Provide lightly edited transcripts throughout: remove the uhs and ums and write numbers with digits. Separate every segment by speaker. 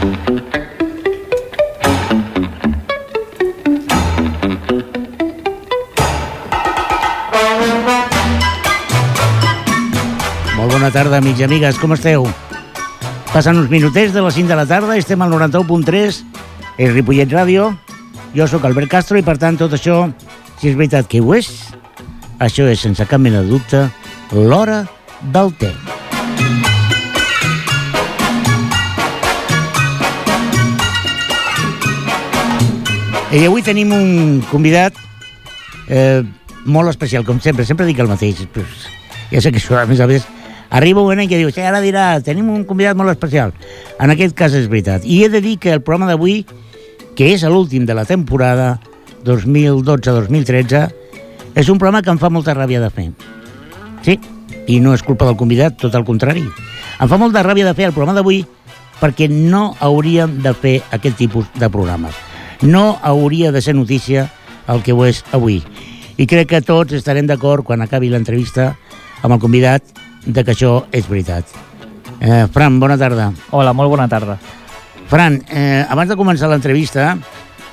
Speaker 1: Bona tarda, amics i amigues, com esteu? Passen uns minutets de les 5 de la tarda, estem al 91.3, és Ripollet Ràdio, jo sóc Albert Castro i per tant tot això, si és veritat que ho és, això és sense cap mena de dubte l'hora del té. I avui tenim un convidat molt especial, com sempre dic el mateix, però ja sé que això a més arriba un moment que diu, ara dirà, tenim un convidat molt especial. En aquest cas és veritat. I he de dir que el programa d'avui, que és l'últim de la temporada 2012-2013, és un programa que em fa molta ràbia de fer. Sí, i no és culpa del convidat, tot el contrari. Em fa molta ràbia de fer el programa d'avui perquè no hauríem de fer aquest tipus de programes. No hauria de ser notícia el que ho és avui. I crec que tots estarem d'acord quan acabi l'entrevista amb el convidat de que això és veritat. Fran, bona tarda.
Speaker 2: Hola, molt bona tarda.
Speaker 1: Fran, abans de començar l'entrevista,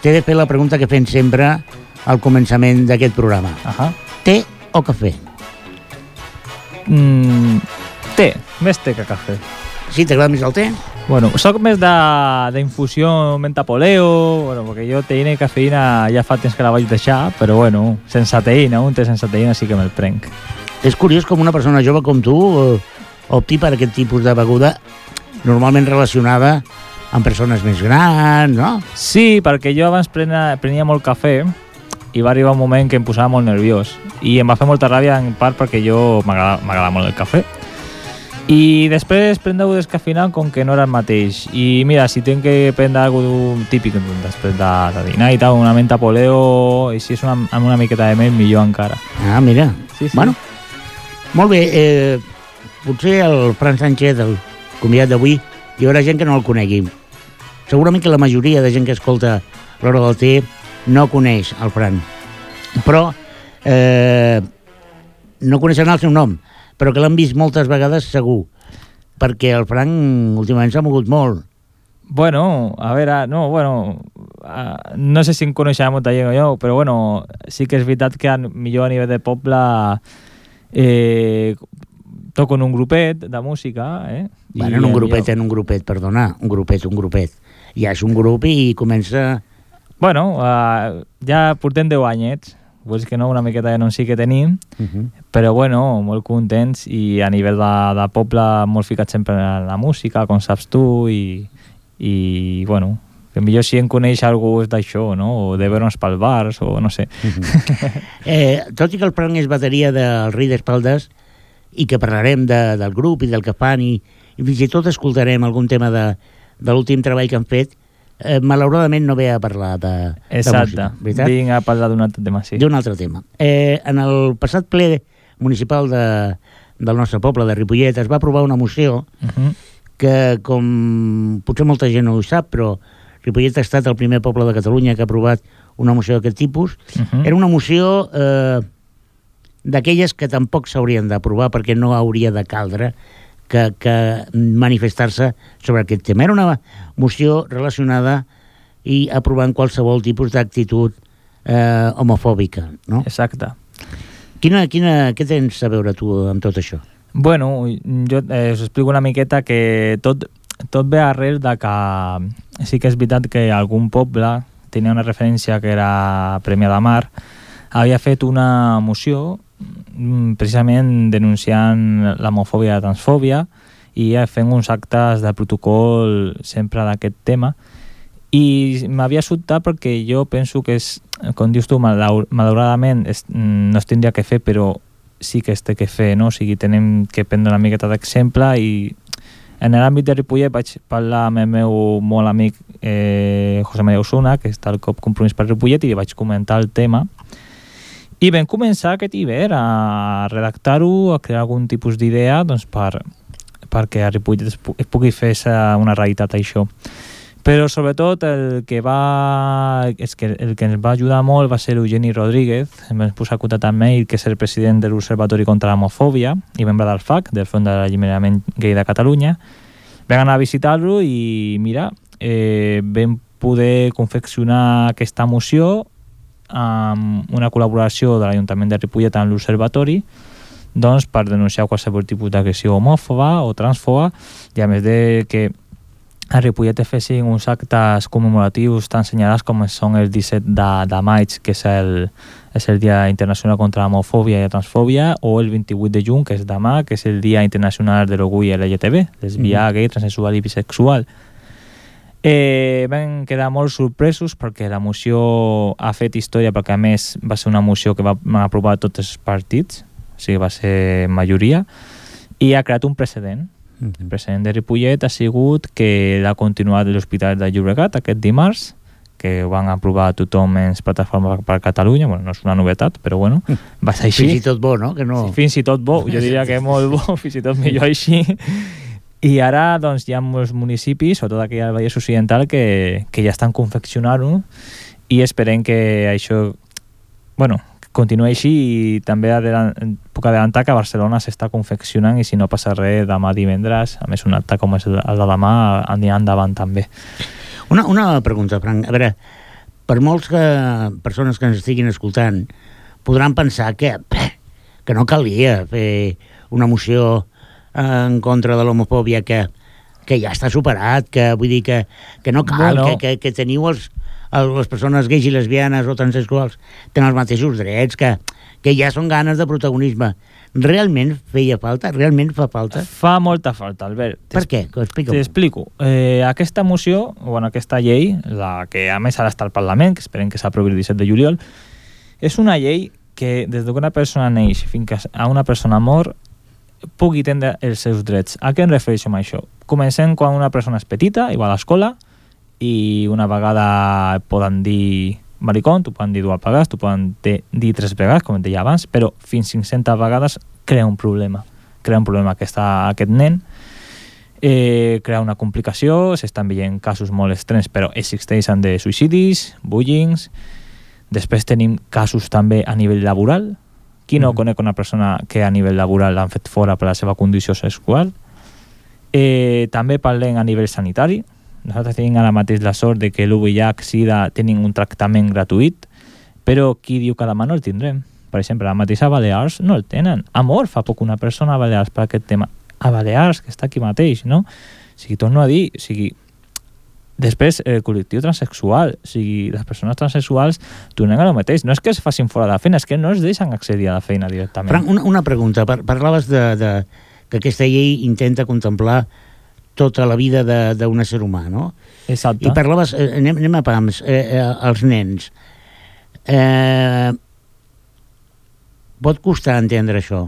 Speaker 1: t'he de fer la pregunta que fem sempre al començament d'aquest programa. Té o cafè?
Speaker 2: Té, més té que cafè.
Speaker 1: Sí, t'agrada més el té?
Speaker 2: Bueno, soc més d'infusió mentapoleo, bueno, perquè jo teïna i cafeïna ja fa temps que la vaig deixar, però bueno, sense teïna, un té sense teïna sí que me'l prenc.
Speaker 1: És curiós com una persona jove com tu opti per aquest tipus de beguda normalment relacionada amb persones més grans, no?
Speaker 2: Sí, perquè jo abans prenia molt cafè i va arribar un moment que em posava molt nerviós i em va fer molta ràbia en part perquè jo m'agrada molt el cafè. I després prendre-ho descafeinat com que no era el mateix. I mira, si tinc que prendre alguna típic després de dinar i tal, una menta poleo, i si és amb una miqueta de mel, millor encara.
Speaker 1: Ah, mira.
Speaker 2: Sí.
Speaker 1: Bueno, molt bé, potser el Fran Sánchez, el convidat d'avui, hi haurà gent que no el conegui. Segurament que la majoria de gent que escolta l'hora del té no coneix el Fran. Però no coneixen el seu nom, però que l'han vist moltes vegades segur, perquè el Fran últimament s'ha mogut molt.
Speaker 2: Bueno, a veure, no sé si em coneixerà molta gent o jo, però bueno, sí que és veritat que millor a nivell de poble toco en un grupet de música,
Speaker 1: Bueno, en un grupet, perdona, un grupet. Ja és un grup i comença...
Speaker 2: Bueno, ja portem 10 anyets, vull dir que no, una miqueta de no sí que tenim, però bueno, molt contents i a nivell de poble molt ficat sempre en la música, com saps tu, i bueno, que millor si em coneix algú és d'això, no? O de veure'ns pel bars, o no sé.
Speaker 1: Tot i que el Fran és bateria del Rei d'Espaldes i que parlarem del grup i del que fan i fins i tot escoltarem algun tema de l'últim treball que han fet, malauradament no ve a parlar de música, veritat?
Speaker 2: Vinc a parlar d'un altre tema, sí.
Speaker 1: D'un altre tema. En el passat ple municipal del nostre poble, de Ripollet, es va aprovar una moció que, com potser molta gent no ho sap, però Ripollet ha estat el primer poble de Catalunya que ha aprovat una moció d'aquest tipus. Era una moció d'aquelles que tampoc s'haurien d'aprovar perquè no hauria de caldre que manifestar-se sobre aquest tema. Era una moció relacionada i aprovant qualsevol tipus d'actitud homofòbica, no?
Speaker 2: Exacte.
Speaker 1: Què tens a veure tu amb tot això?
Speaker 2: Bueno, jo us explico una miqueta que tot ve arrel de que sí que és veritat que algun poble tenia una referència que era Premià de Mar, havia fet una moció precisament denunciant l'homofòbia i la transfòbia i fent uns actes de protocol sempre d'aquest tema, i m'havia sobtat perquè jo penso que és, com dius tu, malauradament no es tindria que fer, però sí que es té que fer, no? O sigui, tenim que prendre una miqueta d'exemple, i en l'àmbit de Ripollet vaig parlar amb el meu molt amic José María Osuna, que està al COP Compromís per Ripollet, i li vaig comentar el tema. I vam començar aquest hivern a redactar-ho, a crear algun tipus d'idea, doncs perquè a Ripollet es pugui fer una realitat això. Però sobretot el que ens va ajudar molt va ser Eugeni Rodríguez. Em vam posar a contactar amb ell, que és el president de l'Observatori contra l'Homofòbia i membre del FAC, del Fons d'Alliberament Gay de Catalunya. Vam anar a visitar-lo i mira, vam poder confeccionar aquesta moció amb una col·laboració de l'Ajuntament de Ripollet amb l'Observatori, doncs, per denunciar qualsevol tipus d'agressió homòfoba o transfoba, i a més de que a Ripollet es fessin uns actes commemoratius tan senyalats com són el 17 de maig, que és el Dia Internacional contra l'Homofòbia i la Transfòbia, o el 28 de juny, que és demà, que és el Dia Internacional de l'Orgull LGTB, lesbià, gay, transsexual i bisexual. Vam quedar molt sorpresos perquè la moció ha fet història, perquè a més va ser una moció que van aprovar tots els partits, o sigui, va ser majoria, i ha creat un precedent. El precedent de Ripollet ha sigut que l'ha continuat l'Hospital de Llobregat aquest dimarts, que ho van aprovar tothom en Plataforma per Catalunya. Bueno, no és una novetat, però bueno, va ser així.
Speaker 1: Fins i tot bo, no? Que no...
Speaker 2: Sí, fins i tot bo, jo diria que molt bo, fins i tot millor així. I ara doncs, hi ha molts municipis, sobretot aquí al Vallès Occidental, que ja estan confeccionant-ho, i esperem que això continuï així, i també puc adelantar que a Barcelona s'està confeccionant, i si no passa res, demà divendres, a més un acte com és el de demà, anirà endavant també.
Speaker 1: Una pregunta, Frank. A veure, per molts persones que ens estiguin escoltant podran pensar que no calia fer una moció en contra de l'homofòbia, que ja està superat, que vull dir que no cal, que teniu les persones gais i lesbianes o transsexuals tenen els mateixos drets, que ja són ganes de protagonisme. Realment feia falta? Realment fa falta?
Speaker 2: Fa molta falta, Albert.
Speaker 1: Per què? Explica'm.
Speaker 2: T'explico. Aquesta moció, aquesta llei, la que a més ara està al Parlament, que esperem que s'aprovi el 17 de juliol, és una llei que des que una persona neix fins a una persona mor pugui tindre els seus drets. A què em refereixo amb això? Comencem quan una persona és petita i va a l'escola, i una vegada poden dir maricón, t'ho poden dir dues vegades, t'ho poden dir 3 vegades, com et deia abans, però fins 500 vegades crea un problema. Crea un problema aquest nen, crea una complicació, s'estan veient casos molt extrems, però existeixen de suïcidis, bullings. Després tenim casos també a nivell laboral. Qui no conec una persona que a nivell laboral l'han fet fora per la seva condició sexual? També parlem a nivell sanitari. Nosaltres tenim ara mateix la sort de que l'UVIH-Sida tenen un tractament gratuït, però qui diu que demà no el tindrem? Per exemple, la mateixa Balears no el tenen. Ha mort fa poc una persona a Balears per aquest tema. A Balears, que està aquí mateix, no? O sigui, torno a dir, després, el col·lectiu transsexual, les persones transsexuals tornen a lo mateix. No és que es facin fora de la feina, és que no es deixen accedir a la feina directament.
Speaker 1: Frank, una pregunta. Parlaves que aquesta llei intenta contemplar tota la vida d'un ésser humà, no?
Speaker 2: Exacte.
Speaker 1: I parlaves, anem a pams, els nens. Pot costar entendre això.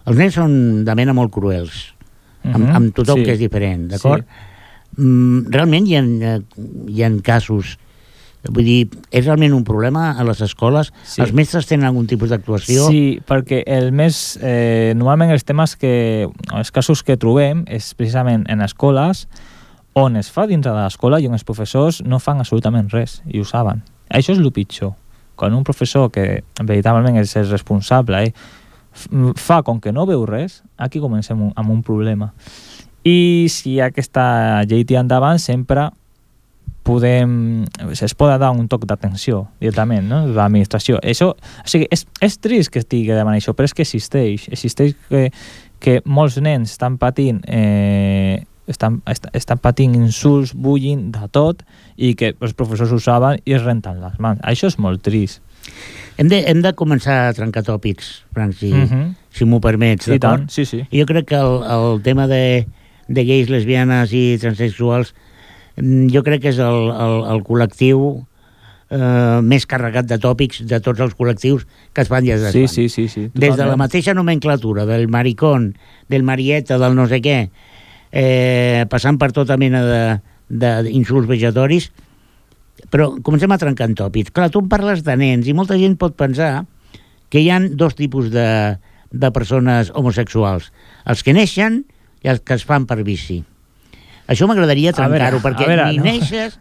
Speaker 1: Els nens són de mena molt cruels, amb tothom que és diferent, d'acord? Sí. Realment hi ha casos, vull dir, és realment un problema a les escoles? Sí. Els mestres tenen algun tipus d'actuació?
Speaker 2: Sí, perquè normalment els casos que trobem és precisament en escoles on es fa dintre de l'escola i on els professors no fan absolutament res, i ho saben. Això és el pitjor. Quan un professor, que veritablement és el responsable, fa com que no veu res, aquí comencem amb un problema. I si aquesta llei tira endavant, sempre es pot dar un toc d'atenció directament, no?, de l'administració. O sigui, és trist que estigui demanant això, però és que existeix que molts nens estan patint insults, bullying, de tot, i que els professors ho saben i es renten les mans. Això és molt trist.
Speaker 1: Hem de començar a trencar tòpics, Frank, si m'ho permets, d'acord?
Speaker 2: I tant, sí.
Speaker 1: Jo crec que el tema de gais, lesbianes i transsexuals, jo crec que és el col·lectiu més carregat de tòpics de tots els col·lectius que es fan i es desfan.
Speaker 2: Sí.
Speaker 1: Des de la mateixa nomenclatura, del maricón, del marieta, del no sé què, passant per tota mena d'insults vejatoris, però comencem a trencar en tòpics. Clar, tu em parles de nens i molta gent pot pensar que hi ha dos tipus de persones homosexuals. Els que neixen i els que es fan per vici. Això m'agradaria trencar-ho, perquè ni neixes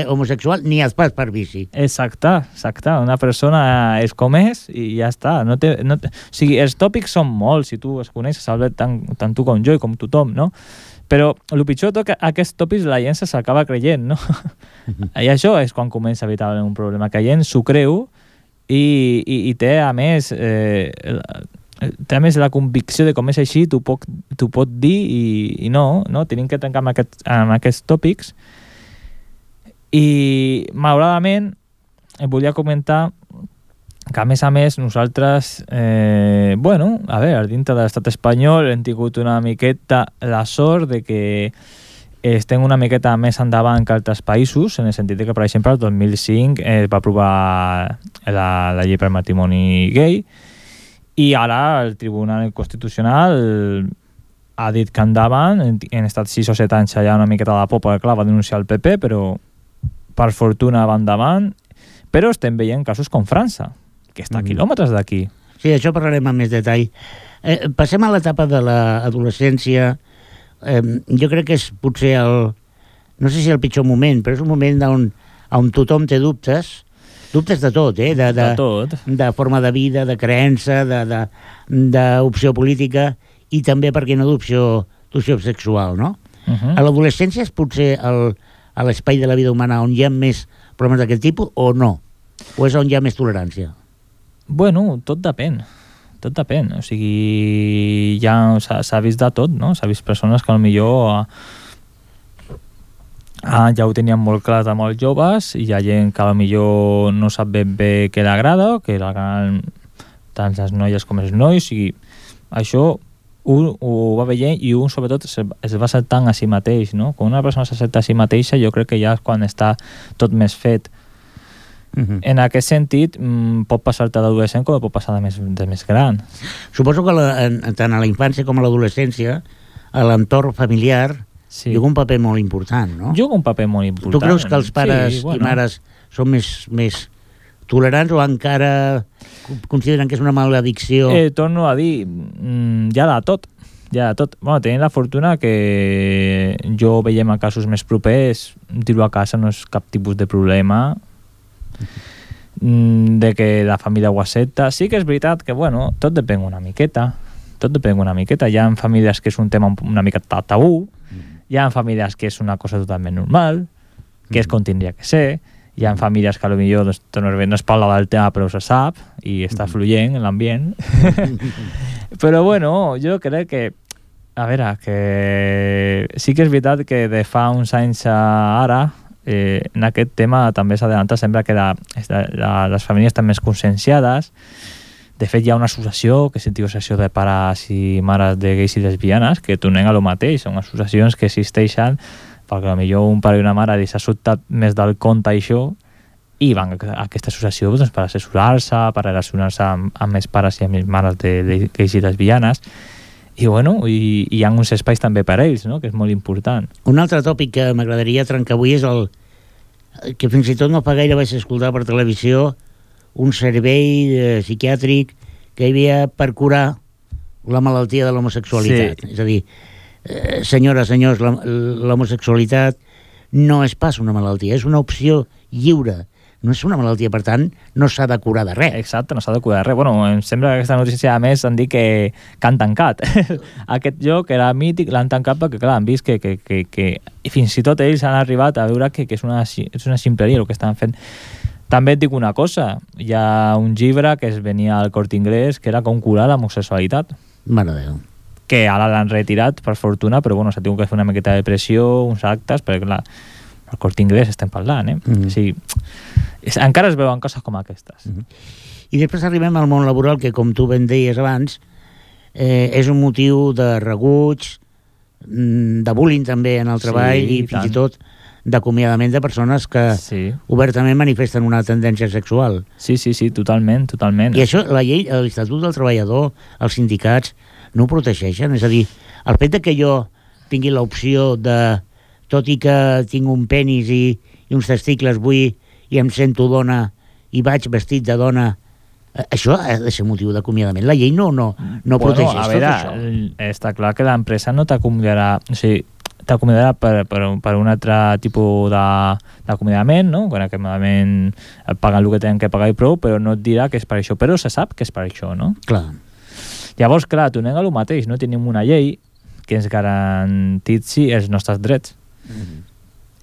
Speaker 1: homosexual ni es fas per vici.
Speaker 2: Exacte. Una persona és com és i ja està. O sigui, els tòpics són molts, si tu els coneixes, Albert, tant tu com jo i com tothom, no? Però el pitjor de tot que aquests tòpics la gent s'acaba creient, no? I això és quan comença veritablement un problema, que la gent s'ho creu i té a més la convicció de com és així, t'ho pot dir i no, tenim que trencar amb aquests tòpics. I malauradament em volia comentar que a més nosaltres a veure, dintre de l'estat espanyol hem tingut una miqueta la sort de que estem una miqueta més endavant que altres països, en el sentit que, per exemple, el 2005 es va aprovar la llei per matrimoni gay i ara el Tribunal Constitucional ha dit que endavant, han estat 6 o 7 anys allà una miqueta de la popa, clar, va denunciar el PP, però per fortuna va endavant, però estem veient casos com França, que està a quilòmetres d'aquí.
Speaker 1: Sí, això parlarem amb més detall. Passem a l'etapa de l'adolescència. Jo crec que és potser no sé si el pitjor moment, però és un moment on tothom té dubtes de tot,
Speaker 2: de tot.
Speaker 1: De forma de vida, de creença, d'opció política i també, per què no, d'opció sexual, no? A l'adolescència és potser a l'espai de la vida humana on hi ha més problemes d'aquest tipus o no? O és on hi ha més tolerància?
Speaker 2: Bueno, tot depèn. O sigui, ja s'ha vist de tot, no? S'ha vist persones que potser ja ho tenien molt clar de molt joves i hi ha gent que potser no sap ben bé què l'agrada, que l'agraden tant les noies com els nois, i això ho va veient i un sobretot es va acceptant a si mateix, no? Quan una persona s'accepta a si mateixa, jo crec que ja és quan està tot més fet. En aquest sentit, pot passar-te d'adolescent com pot passar de més gran.
Speaker 1: Suposo que tant a la infància com a l'adolescència l'entorn familiar juga un paper molt important, no?
Speaker 2: Juga un paper molt important.
Speaker 1: Tu creus que els pares i mares són més tolerants o encara consideren que és una maledicció?
Speaker 2: Torno a dir, ja de tot. Bueno, tenim la fortuna que jo veiem a casos més propers, dir-ho a casa no és cap tipus de problema, de que la família ho accepta. Sí que és veritat que, tot depèn una miqueta. Hi ha famílies que és un tema una mica tabú, hi ha famílies que és una cosa totalment normal, que és com tindria que ser, hi ha famílies que potser no es parla del tema però se sap i està fluent en l'ambient. Però jo crec que a veure, que sí que és veritat que de fa uns anys a ara en aquest tema també s'adelanta sempre que les famílies estan més conscienciades. De fet, hi ha una associació que es diu Associació de Pares i Mares de Gais i Lesbianes que donen a lo mateix. Són associacions que existeixen perquè potser un pare i una mare s'ha sobtat més del compte això i van a aquesta associació per assessorar-se, per relacionar-se amb més pares i amb més mares de gais i lesbianes. I hi ha uns espais també per a ells, no? Que és molt important.
Speaker 1: Un altre tòpic que m'agradaria trencar avui és que fins i tot no fa gaire vaig escoltar per televisió un servei psiquiàtric que hi havia per curar la malaltia de l'homosexualitat. Sí. És a dir, senyores, senyors, l'homosexualitat no és pas una malaltia, és una opció lliure. No és una malaltia, per tant, no s'ha de curar de res.
Speaker 2: Exacte, no s'ha de curar de res. Em sembla que aquesta notícia, a més, han dit que han tancat. Aquest lloc era mític, l'han tancat perquè, clar, han vist que fins i tot ells han arribat a veure que és una ximpleria el que estan fent. També et dic una cosa, hi ha un llibre que es venia al Corte Inglés que era com curar l'homosexualitat.
Speaker 1: Mare de Déu.
Speaker 2: Que ara l'han retirat, per fortuna, però s'ha tingut que fer una miqueta de pressió, uns actes, perquè, clar, al Corte Inglés estem parlant, O sigui, encara es veuen coses com aquestes.
Speaker 1: I després arribem al món laboral, que com tu ben deies abans, és un motiu de rebuig, de bullying també en el treball i fins i tot d'acomiadament de persones que obertament manifesten una tendència sexual.
Speaker 2: Sí, totalment.
Speaker 1: I això, la llei, l'Estatut del Treballador, els sindicats, no ho protegeixen? És a dir, el fet de que jo tingui l'opció de, tot i que tinc un penis i uns testicles, vull i em sento dona i vaig vestit de dona, això ha de ser motiu d'acomiadament. La llei no protegeix tot això.
Speaker 2: Està clar que l'empresa no t'acomiadarà, o sigui, t'acomiadarà per un altre tipus d'acomiadament, no? Quan acomiadament et paguen el que tenen que pagar i prou, però no et dirà que és per això, però se sap que és per això, no?
Speaker 1: Clar.
Speaker 2: Llavors, clar, tornem a lo mateix, no tenim una llei que ens garantitzi els nostres drets.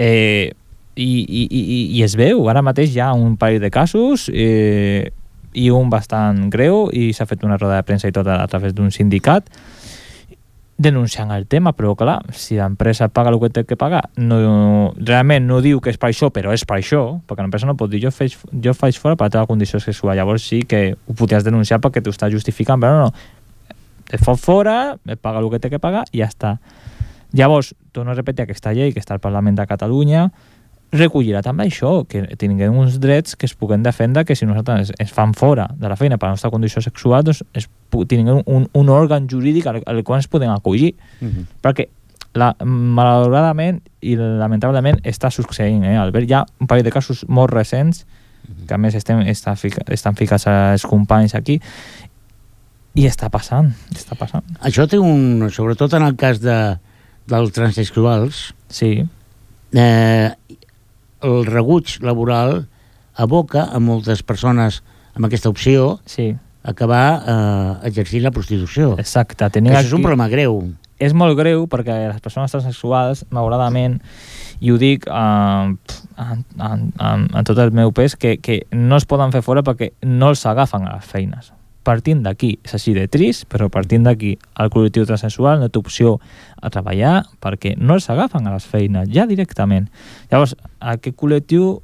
Speaker 2: I es veu, ara mateix hi ha un parell de casos i un bastant greu, i s'ha fet una roda de premsa i tot a través d'un sindicat denunciant el tema, però clar, si l'empresa paga el que té que pagar, realment no diu que és per això, però és per això, perquè l'empresa no pot dir jo faig fora per la teva condició sexual, llavors sí que ho podries denunciar perquè t'ho està justificant, però no, et fot fora, et paga el que té que pagar i ja està. Llavors, torno a repetir, aquesta llei que està al Parlament de Catalunya recollirà també això, que tinguem uns drets que es puguen defendre, que si nosaltres es fan fora de la feina per la nostra condició sexual, doncs tinguem un òrgan jurídic al qual ens podem acollir. Perquè malauradament i lamentablement està succeint, Albert, hi ha un parell de casos molt recents que a més estan ficats els companys aquí, i està passant.
Speaker 1: Això té sobretot en el cas dels transsexuals,
Speaker 2: sí,
Speaker 1: el rebuig laboral aboca a moltes persones amb aquesta opció acabar exercint la prostitució.
Speaker 2: Exacte.
Speaker 1: Això és un problema greu.
Speaker 2: És molt greu perquè les persones transsexuals, malauradament, i ho dic amb tot el meu pes, que no es poden fer fora perquè no els agafen a les feines. Partint d'aquí, és així de trist, però partint d'aquí, el col·lectiu transsexual no té opció a treballar perquè no els agafen a les feines, ja directament. Llavors, aquest col·lectiu,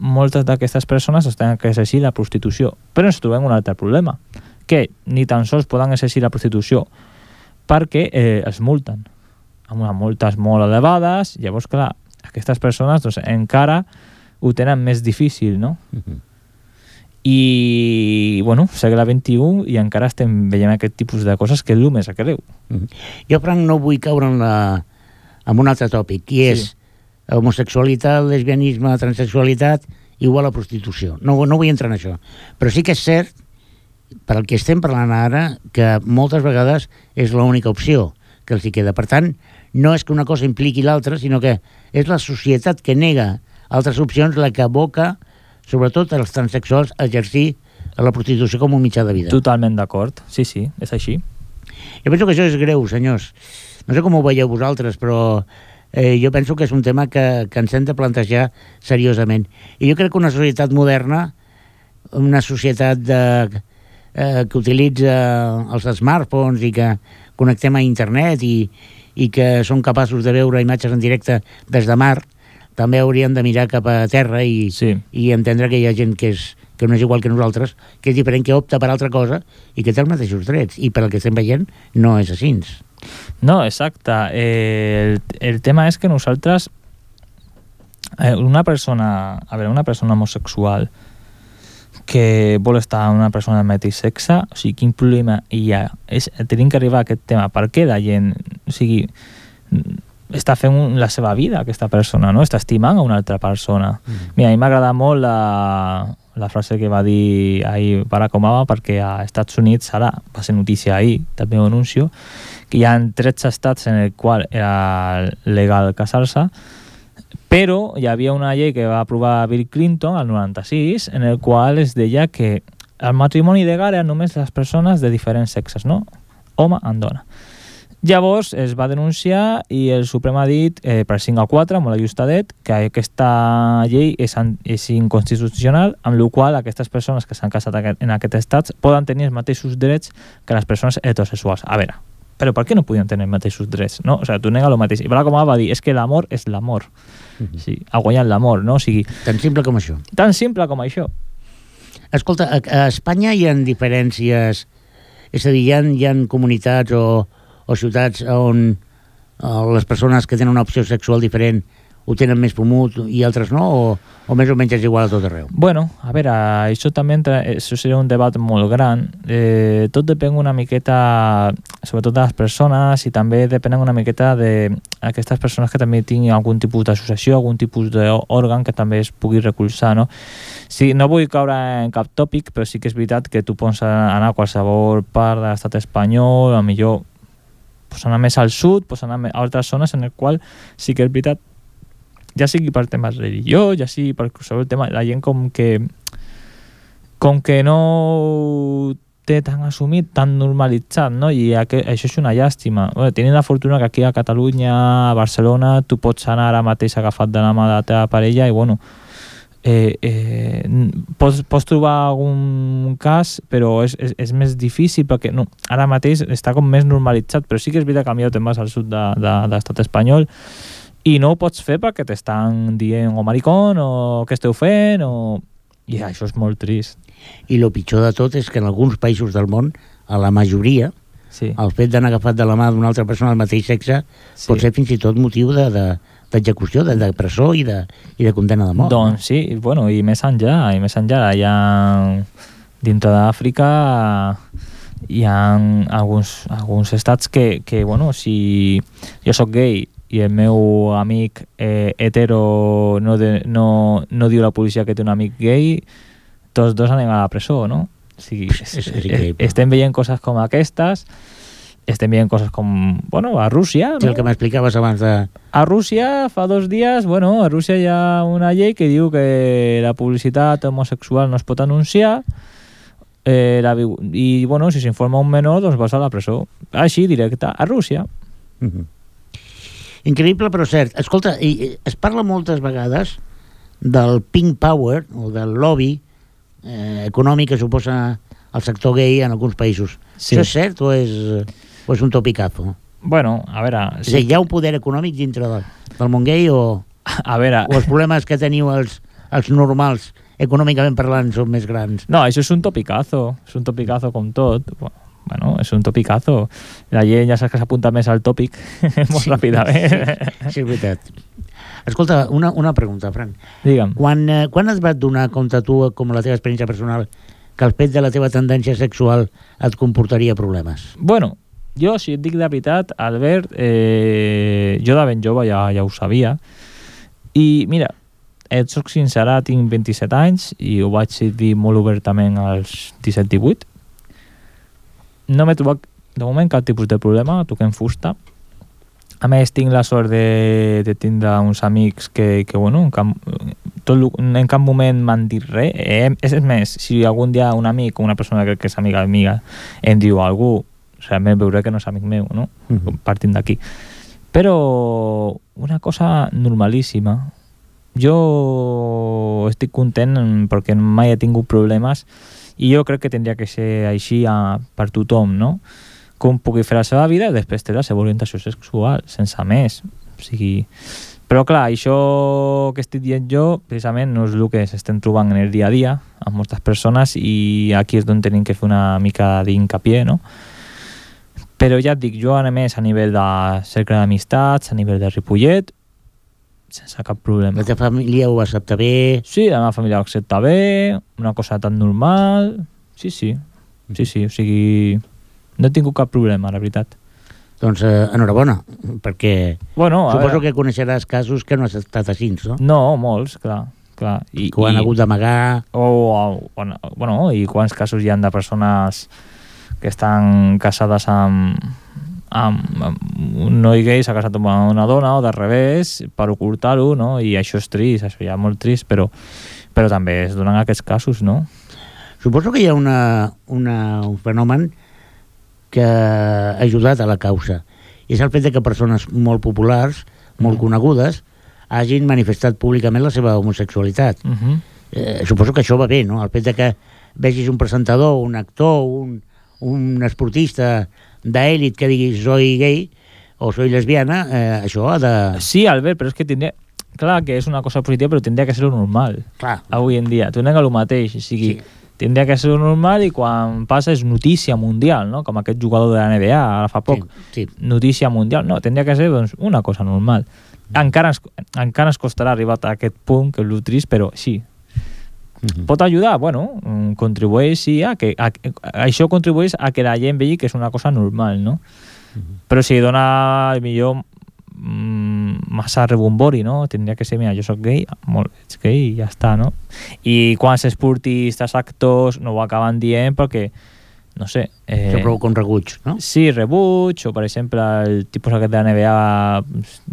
Speaker 2: moltes d'aquestes persones tenen que exercir la prostitució, però ens trobem un altre problema, que ni tan sols poden exercir la prostitució perquè els multen, amb unes multes molt elevades. Llavors, clar, aquestes persones doncs, encara ho tenen més difícil, no? I, bueno, segle XXI i encara estem veient aquest tipus de coses que és el més greu.
Speaker 1: Jo, Frank, no vull caure en un altre tòpic, i és homosexualitat, lesbianisme, transsexualitat igual a prostitució. No vull entrar en això. Però sí que és cert, per al que estem parlant ara, que moltes vegades és l'única opció que els hi queda. Per tant, no és que una cosa impliqui l'altra, sinó que és la societat que nega altres opcions la que aboca sobretot els transsexuals a exercir la prostitució com un mitjà de vida.
Speaker 2: Totalment d'acord, sí, és així.
Speaker 1: Jo penso que això és greu, senyors. No sé com ho veieu vosaltres, però jo penso que és un tema que ens hem de plantejar seriosament. I jo crec que una societat moderna, una societat que utilitza els smartphones i que connectem a internet i que són capaços de veure imatges en directe des de mar, també hauríem de mirar cap a terra i entendre que hi ha gent que no és igual que nosaltres, que és diferent, que opta per altra cosa i que té els mateixos drets. I per el que estem veient no és així.
Speaker 2: No, exacte. El tema és que nosaltres, una persona homosexual que vol estar amb una persona del mateix sexe, o sigui, quin problema hi ha? Tenim que arribar a aquest tema. Per què la gent, o sigui, està fent la seva vida, aquesta persona, no? Està estimant a una altra persona. Mira, a mi m'agrada molt la frase que va dir ahir Barack Obama, perquè a Estats Units, ara va ser notícia ahir, també ho anuncio, que hi ha 13 estats en el qual era legal casar-se, però hi havia una llei que va aprovar Bill Clinton al 96, en el qual es deia que el matrimoni legal era només les persones de diferents sexes, no? Home en dona. Llavors es va denunciar i el Suprem ha dit per 5-4, molt ajustadet, que aquesta llei és inconstitucional, amb la qual aquestes persones que s'han casat en aquests estats poden tenir els mateixos drets que les persones heterosexuals. A veure, però per què no podien tenir els mateixos drets? No? O sigui, tu nega el mateix. I Barack Obama va dir, és que l'amor és l'amor. Sí, ha guanyat l'amor, no? O sigui,
Speaker 1: tan simple com això.
Speaker 2: Tan simple com això.
Speaker 1: Escolta, a Espanya hi ha diferències, és a dir, hi ha comunitats o ciutats on les persones que tenen una opció sexual diferent ho tenen més pomut i altres no, o més o menys és igual a tot arreu?
Speaker 2: Bueno, a veure, això també això seria un debat molt gran. Tot depèn una miqueta, sobretot de les persones, i també depèn una miqueta d'aquestes persones que també tinguin algun tipus d'associació, algun tipus d'òrgan que també es pugui recolzar, no? Sí, no vull caure en cap tòpic, però sí que és veritat que tu pots anar a qualsevol part de l'estat espanyol, a millor pots anar més al sud, pots anar a altres zones en el qual sí que és veritat, ja sigui per temes religió, ja sigui per qualsevol tema, la gent com que no té tan assumit, tan normalitzat, no? I això és una llàstima. Bueno, tenint la fortuna que aquí a Catalunya, a Barcelona, tu pots anar ara mateix agafat de la mà de la teva parella i, bueno, pots trobar algun cas, però és més difícil perquè no, ara mateix està com més normalitzat, però sí que és veritat que millor te'n vas al sud de l'estat espanyol i no ho pots fer perquè t'estan dient o maricón o què esteu fent i això és molt trist.
Speaker 1: I el pitjor de tot és que en alguns països del món, a la majoria,
Speaker 2: sí,
Speaker 1: el fet d'anar agafat de la mà d'una altra persona del mateix sexe pot ser fins i tot motiu d'execució, de presó i de condemna de mort.
Speaker 2: Doncs sí, bueno, i més enllà, allà dintre d'Àfrica hi ha alguns estats que bueno, si jo sóc gay i el meu amic hetero no diu la policia que té un amic gay, tots dos anem a la presó, no? O sigui, estem veient coses com aquestes, estem veient coses com, bueno, a Rússia, no?
Speaker 1: Sí, el que m'explicaves abans de...
Speaker 2: A Rússia, fa 2 dies, bueno, a Rússia hi ha una llei que diu que la publicitat homosexual no es pot anunciar i, bueno, si s'informa un menor, doncs vas a la presó. Així, directe, a Rússia.
Speaker 1: Increïble, però cert. Escolta, es parla moltes vegades del pink power, o del lobby econòmic que suposa el sector gay en alguns països. Sí. Això és cert o és un topicazo?
Speaker 2: Bueno, a veure...
Speaker 1: És a dir, hi ha un poder econòmic dintre del món gay o els problemes que teniu els normals, econòmicament parlant, són més grans?
Speaker 2: No, això és un topicazo com tot. Bueno, és un topicazo. La gent ja saps que s'apunta més al tòpic molt ràpidament.
Speaker 1: Sí, és veritat. Escolta, una pregunta, Fran.
Speaker 2: Digue'm.
Speaker 1: Quan et vas donar compte tu, com la teva experiència personal, que el fet de la teva tendència sexual et comportaria problemes?
Speaker 2: Bueno, jo, si et dic de veritat, Albert, jo de ben jove ja ho sabia. I, mira, et soc sincera, tinc 27 anys i ho vaig dir molt obertament als 17-18. No m'he trobat, de moment, cap tipus de problema, toquem fusta. A més, tinc la sort de tindre uns amics que bueno, en cap moment m'han dit res. És més, si algun dia un amic o una persona que és amiga em diu algú, realment veuré que no és amic meu, no? Partint d'aquí. Però una cosa normalíssima. Jo estic content perquè mai he tingut problemes i jo crec que tindria que ser així per tothom, no? Com pugui fer la seva vida i després té la seva orientació sexual, sense més. O sigui... Però clar, això que estic dient jo precisament no és el que s'estem trobant en el dia a dia amb moltes persones i aquí és on tenim que fer una mica d'incapié, no? Però ja et dic, jo a més a nivell de cercle d'amistats, a nivell de Ripollet, sense cap problema.
Speaker 1: La teva família ho accepta bé?
Speaker 2: Sí, la meva família ho accepta bé, una cosa tan normal... Sí, o sigui... No he tingut cap problema, la veritat.
Speaker 1: Doncs enhorabona, perquè suposo que coneixeràs casos que no has estat així, no?
Speaker 2: No, molts, clar.
Speaker 1: I que ho han hagut d'amagar...
Speaker 2: Bueno, i quants casos hi ha de persones que estan casades amb un noi gay, s'ha casat amb una dona o de revés per ocultar-ho, no? I això és trist, això ja és molt trist, però també es donen aquests casos, no?
Speaker 1: Suposo que hi ha un fenomen que ha ajudat a la causa. I és el fet que persones molt populars, molt conegudes, hagin manifestat públicament la seva homosexualitat. Suposo que això va bé, no? El fet que vegis un presentador, un actor, un esportista d'èlit que digui soy gay o soy lesbiana, això ha de...
Speaker 2: Sí, Albert, però és que tindria... Clar que és una cosa positiva, però tindria que ser normal.
Speaker 1: Clar.
Speaker 2: Avui en dia. Tornem a lo mateix, o sigui... Sí. Tindria que ser normal i quan passa és notícia mundial, no? Com aquest jugador de la NBA ara fa poc.
Speaker 1: Sí.
Speaker 2: Notícia mundial. No, tindria que ser doncs, una cosa normal. Encara ens costarà arribar a aquest punt, que és el trist, però sí. Pot ajudar? Bueno, contribueix, sí, això contribueix a que la gent vegi que és una cosa normal, no? Però si dona millor massa rebombori, no? Tindria que ser, mira, jo soc gay, ets gay i ja està, no? I quants esportistes, actors no ho acaben dient perquè, no sé...
Speaker 1: Això provoca un rebuig, no?
Speaker 2: Sí, rebuig, o per exemple el tipus aquest de la NBA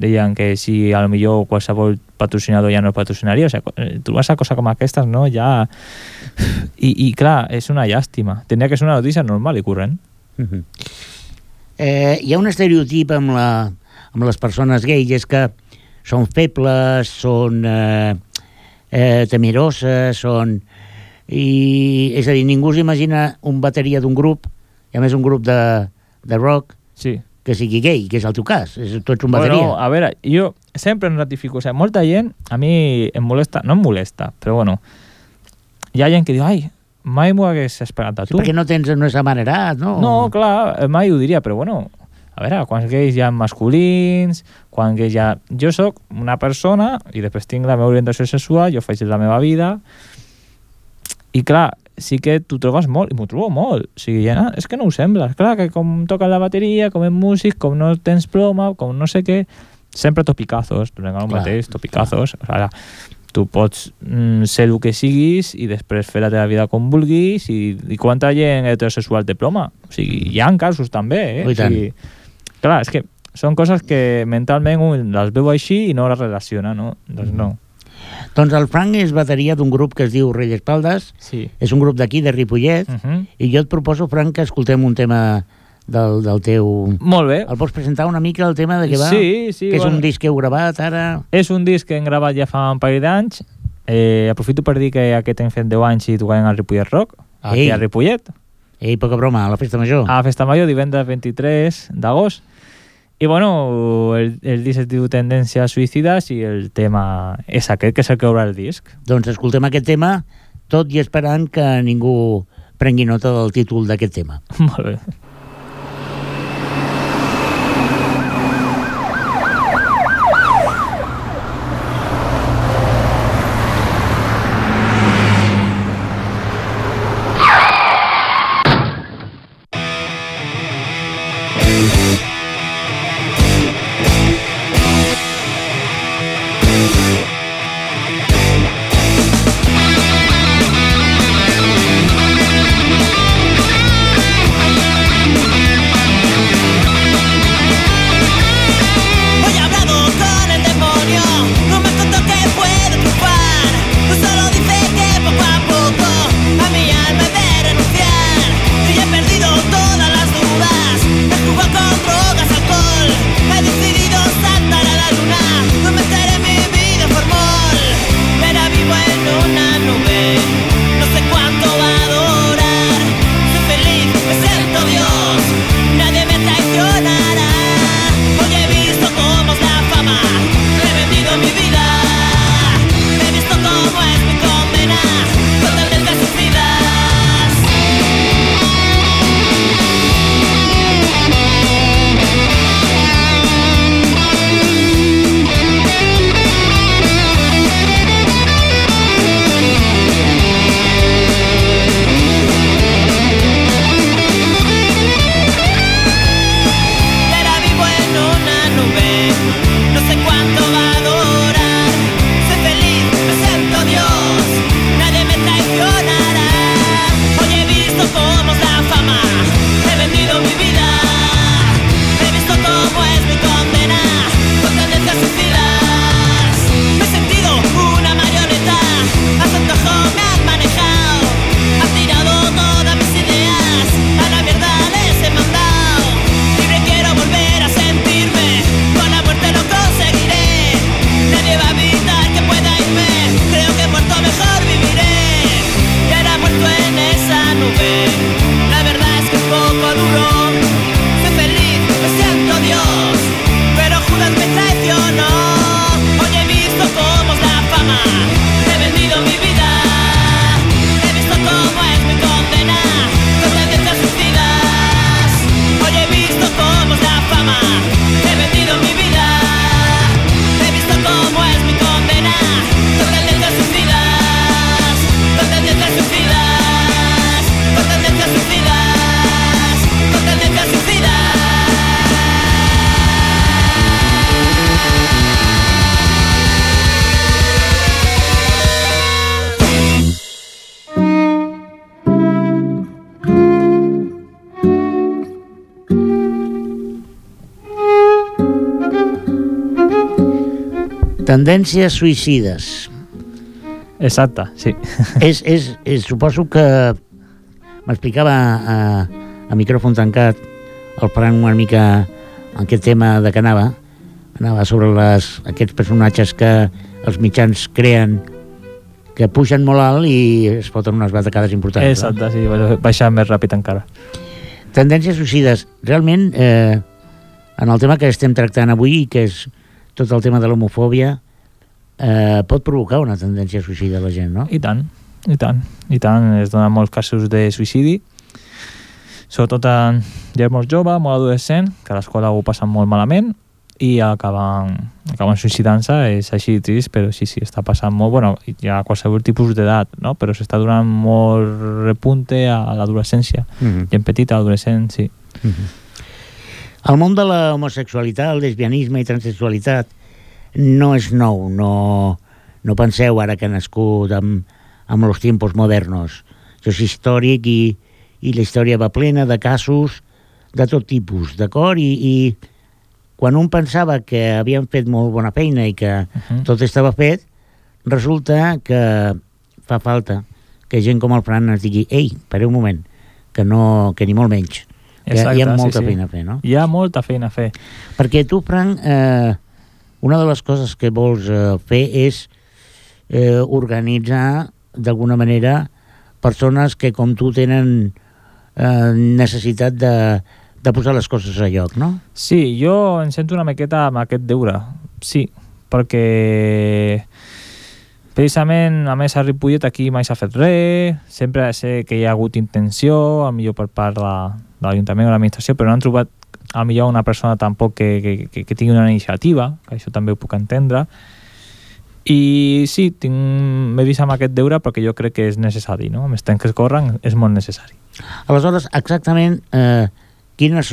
Speaker 2: deien que si a lo millor qualsevol patrocinador ja no el patrocinaria, o sigui, trobes a cosa com aquestes, no? Ja... I clar, és una llàstima. Tenia que ser una notícia normal i corrent.
Speaker 1: Hi ha un estereotip amb les persones gais, és que són febles, són temeroses, són... És a dir, ningú s'imagina un bateria d'un grup, i a més un grup de rock,
Speaker 2: sí,
Speaker 1: que sigui gay, que és el teu cas. Tu ets un bateria.
Speaker 2: Bueno, a veure, jo sempre em ratifico. O sigui, molta gent, a mi em molesta, no em molesta, però bueno, hi ha gent que diu, ai, mai m'ho hagués esperat a tu.
Speaker 1: Sí, perquè no és amanerat, no?
Speaker 2: No, clar, mai ho diria, però bueno, a veure, quants gais hi ha masculins, quants gais hi ha... Jo sóc una persona i després tinc la meva orientació sexual, jo faig la meva vida i clar, sí que t'ho trobes molt, i m'ho trobo molt. O sigui, ja, és que no ho sembla. Clar, que com toca la bateria, com és músic, com no tens ploma, com no sé què, sempre topicazos, donem el mateix, topicazos. O sigui, tu pots ser el que siguis i després fer la teva vida com vulguis i quanta gent heterosexual té ploma. O sigui, hi ha casos també,
Speaker 1: O sigui,
Speaker 2: clar, és que són coses que mentalment un les veu així i no les relaciona, no? Doncs no.
Speaker 1: Doncs el Frank és bateria d'un grup que es diu Rei d'Espaldes,
Speaker 2: sí.
Speaker 1: És un grup d'aquí, de Ripollet, i jo et proposo, Frank, que escoltem un tema del teu...
Speaker 2: Molt bé.
Speaker 1: El pots presentar una mica, el tema de què va?
Speaker 2: Sí,
Speaker 1: que és un disc que heu gravat ara?
Speaker 2: És un disc que hem gravat ja fa un parell d'anys. Aprofito per dir que aquest hem fet 10 anys i tocarem al Ripollet Rock, aquí a Ripollet.
Speaker 1: Ei, poca broma, a la Festa Major.
Speaker 2: A la Festa Major, divendres 23 d'agost. I bueno, el disc es diu Tendències Suïcides i el tema és aquest, que és el que obre el disc.
Speaker 1: Doncs escoltem aquest tema, tot i esperant que ningú prengui nota del títol d'aquest tema.
Speaker 2: Molt bé.
Speaker 1: Tendències suïcides.
Speaker 2: Exacte, sí.
Speaker 1: Suposo que m'explicava a micròfon tancat el Fran una mica en aquest tema de que anava sobre aquests personatges que els mitjans creen, que pugen molt alt i es foten unes batacades importants.
Speaker 2: Exacte, sí, baixar més ràpid encara.
Speaker 1: Tendències suïcides. Realment, en el tema que estem tractant avui, que és tot el tema de l'homofòbia, pot provocar una tendència suïcida a la gent, no?
Speaker 2: I tant. Es donen molts casos de suïcidi, sobretot en gent molt jove, molt adolescent, que a l'escola ho passen molt malament i acaben suïcidant-se. És així trist, però sí, està passant molt. Bueno, hi ha qualsevol tipus d'edat, no? Però s'està donant molt repunte a l'adolescència. Gent petita, adolescent, sí.
Speaker 1: El món de la homosexualitat, el lesbianisme i transsexualitat no és nou, no penseu ara que ha nascut amb els tiempos modernos. Això és històric i la història va plena de casos de tot tipus, d'acord? I quan un pensava que havien fet molt bona feina i que tot estava fet, resulta que fa falta que gent com el Fran ens digui ei, pareu un moment, que ni molt menys. Exacte, hi ha molta feina a fer, no?
Speaker 2: Hi ha molta feina a fer.
Speaker 1: Perquè tu, Fran, una de les coses que vols fer és organitzar d'alguna manera persones que com tu tenen necessitat de posar les coses a lloc, no?
Speaker 2: Sí, jo em sento una miqueta amb aquest deure, sí, perquè precisament, a més, a Ripollet aquí mai s'ha fet res, sempre sé que hi ha hagut intenció, millor per part de l'Ajuntament o l'administració, però no han trobat millor una persona tampoc que tingui una iniciativa, que això també ho puc entendre. I sí, m'he vist amb aquest deure perquè jo crec que és necessari, no? Amb els temps que es corren és molt necessari.
Speaker 1: Aleshores, exactament, quins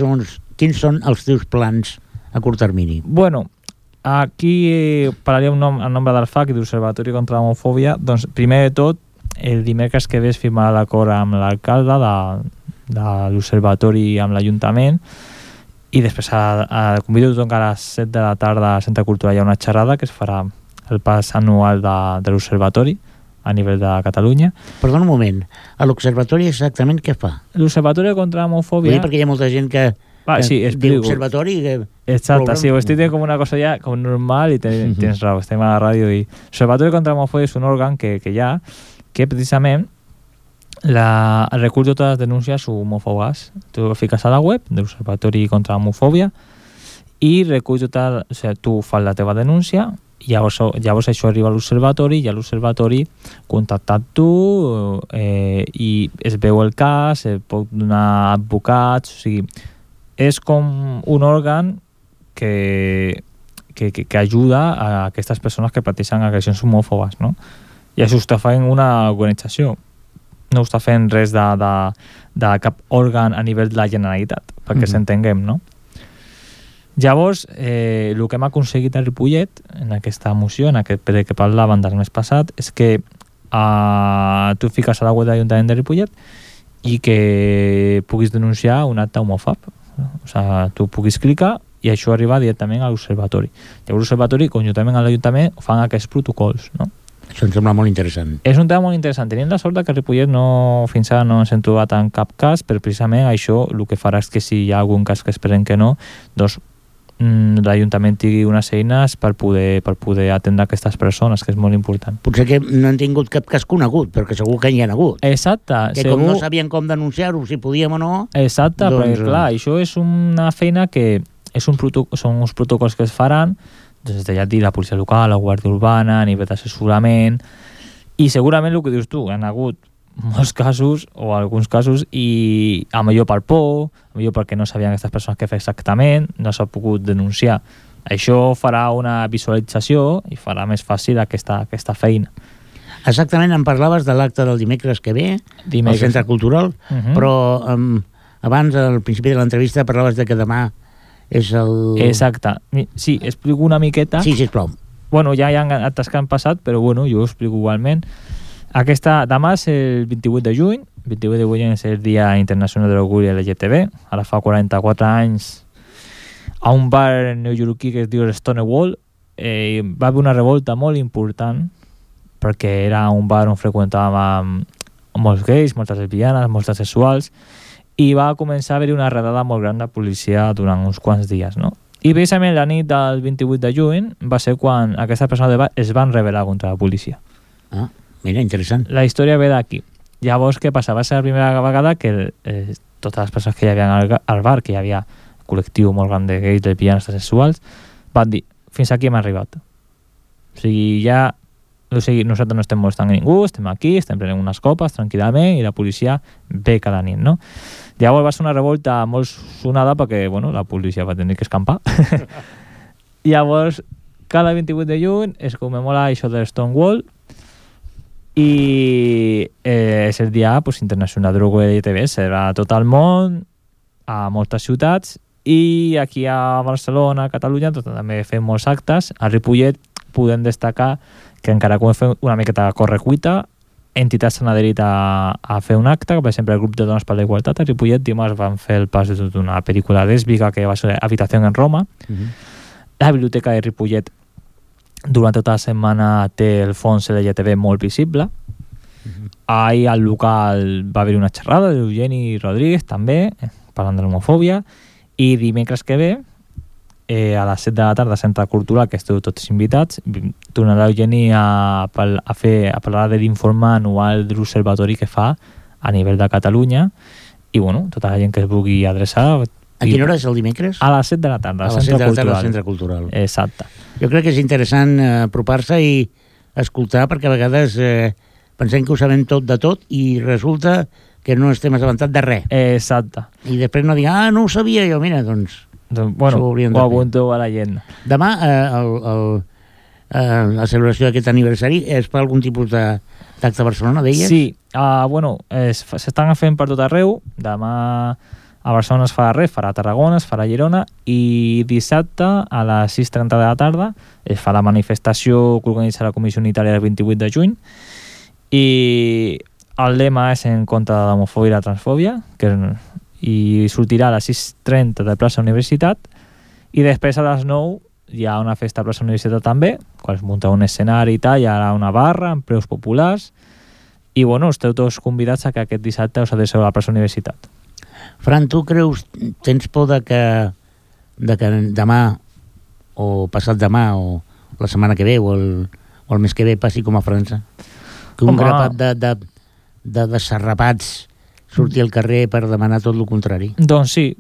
Speaker 1: són els teus plans a curt termini?
Speaker 2: Bueno, aquí parlaria en nombre del FAC i de l'Observatori contra l'Homofòbia. Doncs, primer de tot, el dimecres que ve es firmarà l'acord amb l'alcalde de l'Observatori amb l'Ajuntament, i després convido tothom que a les 7 de la tarda al Centre Cultural hi ha una xerrada que es farà el pas anual de l'Observatori a nivell de Catalunya.
Speaker 1: Perdona un moment, a l'Observatori exactament què fa?
Speaker 2: L'Observatori contra l'Homofòbia...
Speaker 1: Perquè hi ha molta gent que diu Observatori...
Speaker 2: Exacte, sí, ho estic dient com una cosa ja com normal i tens raó, estem a la ràdio i... L'Observatori contra l'Homofòbia és un òrgan que hi ha, que precisament recull totes les denúncies homòfobes. Tu fiques a la web de l'Observatori contra l'Homofòbia i recull tota... O sigui, tu fas la teva denúncia i llavors això arriba a l'Observatori i a l'Observatori contactat tu i es veu el cas, es pot donar advocats, o sigui, és com un òrgan que ajuda a aquestes persones que pateixen agressions homòfobes, no? I això ho està fent una organització, no ho està fent res de cap òrgan a nivell de la Generalitat, perquè s'entenguem, no? Llavors, el que hem aconseguit a Ripollet, en aquesta moció, en aquest ple que parlàvem del mes passat, és que tu fiques a la web de l'Ajuntament de Ripollet i que puguis denunciar un acte homòfob. O sigui, tu puguis clicar i això arriba directament a l'Observatori. Llavors l'Observatori, conjuntament amb l'Ajuntament, fan aquests protocols, no?
Speaker 1: Això em sembla molt interessant.
Speaker 2: És un tema molt interessant. Tenim la sort que a Ripollet fins ara no ens hem trobat en cap cas, però precisament això el que farà és que si hi ha algun cas que esperem que no, doncs l'Ajuntament tingui unes eines per poder atendre aquestes persones, que és molt important.
Speaker 1: Potser que no han tingut cap cas conegut, però que segur que hi ha hagut.
Speaker 2: Exacte.
Speaker 1: Que com no sabien com denunciar-ho, si podíem o no...
Speaker 2: Exacte, perquè clar, això és una feina que són uns protocols que es faran des de, ja et dic, la policia local, la guàrdia urbana, a nivell d'assessorament, i segurament el que dius tu, han hagut molts casos, o alguns casos, i a millor per por, a millor perquè no sabien aquestes persones què fer exactament, no s'ha pogut denunciar. Això farà una visualització i farà més fàcil aquesta feina.
Speaker 1: Exactament, em parlaves de l'acte del dimecres que ve, al Centre Cultural, però abans, al principi de l'entrevista, parlaves de que demà és el...
Speaker 2: Exacte. Sí, explico una miqueta.
Speaker 1: Sí, sisplau.
Speaker 2: Bueno, ja hi ha actes que han passat, però bueno, jo ho explico igualment. Demà és el 28 de juny. 28 de juny és el Dia Internacional de l'Orgull LGTB. Ara fa 44 anys a un bar neoyorquí que es diu Stonewall va haver una revolta molt important perquè era un bar on freqüentàvem molts gais, moltes lesbianes, molts sexuals, i va començar a haver-hi una redada molt gran de policia durant uns quants dies, no? I precisament la nit del 28 de juny va ser quan aquestes persones de bar es van rebel·lar contra la policia.
Speaker 1: Ah, mira, interessant.
Speaker 2: La història ve d'aquí. Llavors, què passa? Va ser la primera vegada que totes les persones que hi havia al bar, que hi havia un col·lectiu molt gran de gais, lesbianes, sexuals, van dir, fins aquí hem arribat. O sigui, nosaltres no estem molestant a ningú, estem aquí, estem prenent unes copes tranquil·lament i la policia ve cada nit, no? Llavors va ser una revolta molt sonada perquè, bueno, la policia va tenir que escampar. Llavors, cada 28 de juny es commemora això de Stonewall i és el dia internacional de l'orgull LGTB, serà a tot el món, a moltes ciutats, i aquí a Barcelona, a Catalunya, també fem molts actes. A Ripollet podem destacar que encara que ho fem una miqueta a correcuita, entitats s'han adherit a fer un acte, per exemple el grup de Dones per la Igualtat a Ripollet dimarts van fer el pas d'una pel·lícula lèsbica que va ser Habitació en Roma. La biblioteca de Ripollet durant tota la setmana té el fons LGTB molt visible. Ahir al local va haver una xerrada d'Eugeni Rodríguez també, parlant de l'homofòbia, i dimecres que ve a les 7 de la tarda a Centre Cultural, que esteu tots invitats, tornarà Eugeni a parlar de l'informe anual de l'observatori que fa a nivell de Catalunya, i bueno, tota la gent que es vulgui adreçar.
Speaker 1: A quina hora és el dimecres?
Speaker 2: A les 7 de la tarda,
Speaker 1: a les 7 de la tarda al Centre Cultural.
Speaker 2: Exacte.
Speaker 1: Jo crec que és interessant apropar-se i escoltar, perquè a vegades pensem que ho sabem tot de tot i resulta que no estem assabentats de res.
Speaker 2: Exacte.
Speaker 1: I després no diguin, no ho sabia jo, mira, doncs
Speaker 2: bueno, ho apunto a la gent.
Speaker 1: Demà la celebració d'aquest aniversari és per algun tipus d'acte a Barcelona, deies?
Speaker 2: Sí, bueno, s'estan fent per tot arreu. Demà a Barcelona es farà res, farà a Tarragona, es farà a Girona, i dissabte a les 6:30 de la tarda es fa la manifestació que organitza la Comissió Unitària el 28 de juny, i el lema és en contra de l'homofòbia i la transfòbia, i sortirà a les 6:30 de plaça Universitat, i després a les 9 hi ha una festa a plaça Universitat també, quan es munta un escenari i tal, hi ha una barra amb preus populars, i bueno, esteu tots convidats a que aquest dissabte us adreceu a la plaça Universitat.
Speaker 1: Fran, tu creus, tens por de que demà o passat demà o la setmana que ve o el mes que ve passi com a França? Que un grapat de desarrapats sortir al carrer per demanar tot el contrari?
Speaker 2: Doncs sí,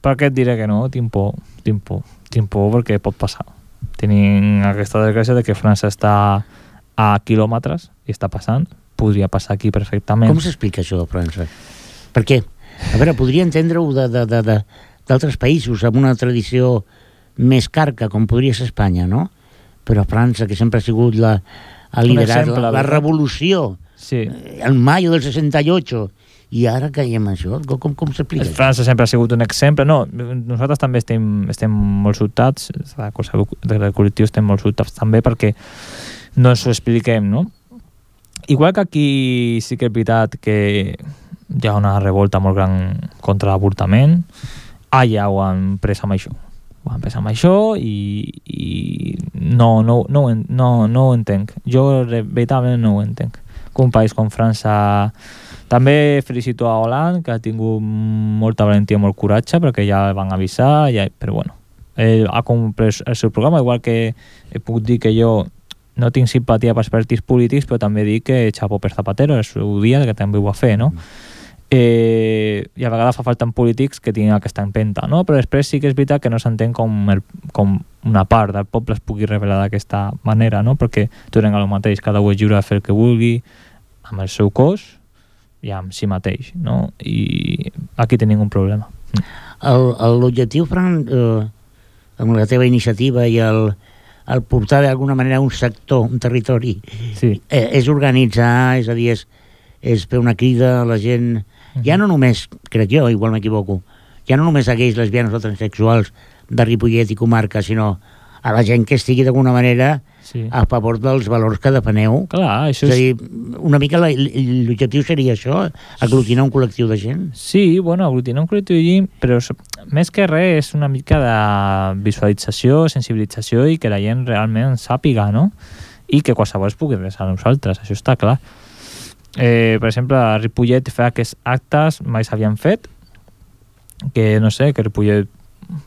Speaker 2: per què et diré que no? Tinc por perquè pot passar. Tenim aquesta desgràcia de que França està a quilòmetres i està passant. Podria passar aquí perfectament.
Speaker 1: Com s'explica això de França? Per què? A veure, podria entendre-ho d'altres països amb una tradició més carca, com podria ser Espanya, no? Però França, que sempre ha sigut ha liderat la revolució,
Speaker 2: sí.
Speaker 1: El maio del 68, i ara caiem en això. Com s'explica?
Speaker 2: França sempre ha sigut un exemple. No, nosaltres també estem molt sobtats, del col·lectiu estem molt sobtats també perquè no ens ho expliquem, no? Igual que aquí sí que és veritat que hi ha una revolta molt gran contra l'avortament, allà ho han pres amb això. Ho han pres amb això i no ho entenc. Jo veritablement no ho entenc. Que un país com França... També felicito a Hollande, que ha tingut molta valentia, molt coratge, perquè ja el van avisar, però bueno, ell ha complert el seu programa, igual que puc dir que jo no tinc simpatia pels partits polítics, però també dic que xapó per Zapatero, el seu dia, que també ho va fer, no? I a vegades fa falta en polítics que tinguin aquesta empenta, no? Però després sí que és veritat que no s'entén com una part del poble es pugui revelar d'aquesta manera, no? Perquè tornem a lo mateix, cada un és lliure de fer el que vulgui amb el seu cos i amb si mateix, no? I aquí tenim un problema.
Speaker 1: L'objectiu, Fran, amb la teva iniciativa i el portar d'alguna manera un sector, un territori,
Speaker 2: sí.
Speaker 1: És organitzar, és a dir, és fer una crida a la gent, ja no només, crec jo, igual m'equivoco, ja no només a gais, lesbianes o transsexuals de Ripollet i comarca, sinó a la gent que estigui d'alguna manera a favor dels valors que defeneu.
Speaker 2: Clar, això
Speaker 1: és a dir, una mica l'objectiu seria això, aglutinar un col·lectiu de gent.
Speaker 2: Sí, bueno, aglutinar un col·lectiu de gent, però més que res és una mica de visualització, sensibilització i que la gent realment sàpiga, no? I que qualsevol es pugui resar a nosaltres, això està clar. Per exemple, a Ripollet fa aquests actes mai s'havien fet, que no sé, que Ripollet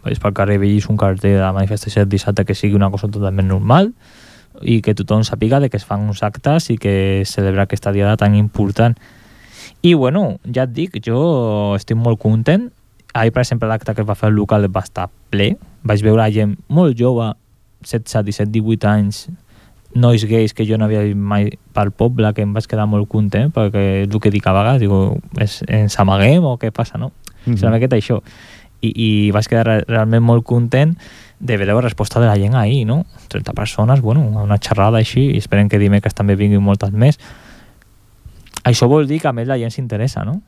Speaker 2: vaig pel carrer i un cartell de la manifestació del dissabte que sigui una cosa totalment normal i que tothom sàpiga de que es fan uns actes i que celebra aquesta diada tan important. I bueno, ja et dic, jo estic molt content. Ahir, per exemple, l'acte que es va fer al local va estar ple. Vaig veure gent molt jove, 16, 17, 18 anys, nois gais que jo no havia vist mai pel poble, que em vaig quedar molt content, perquè és el que dic a vegades, digo, ens amaguem o què passa, no? És una miqueta això. I vaig quedar realment molt content de veure la resposta de la gent ahir, no? 30 persones, bueno, una xerrada així, i esperem que dimecres també vinguin moltes més. Això vol dir que a més la gent s'interessa, no?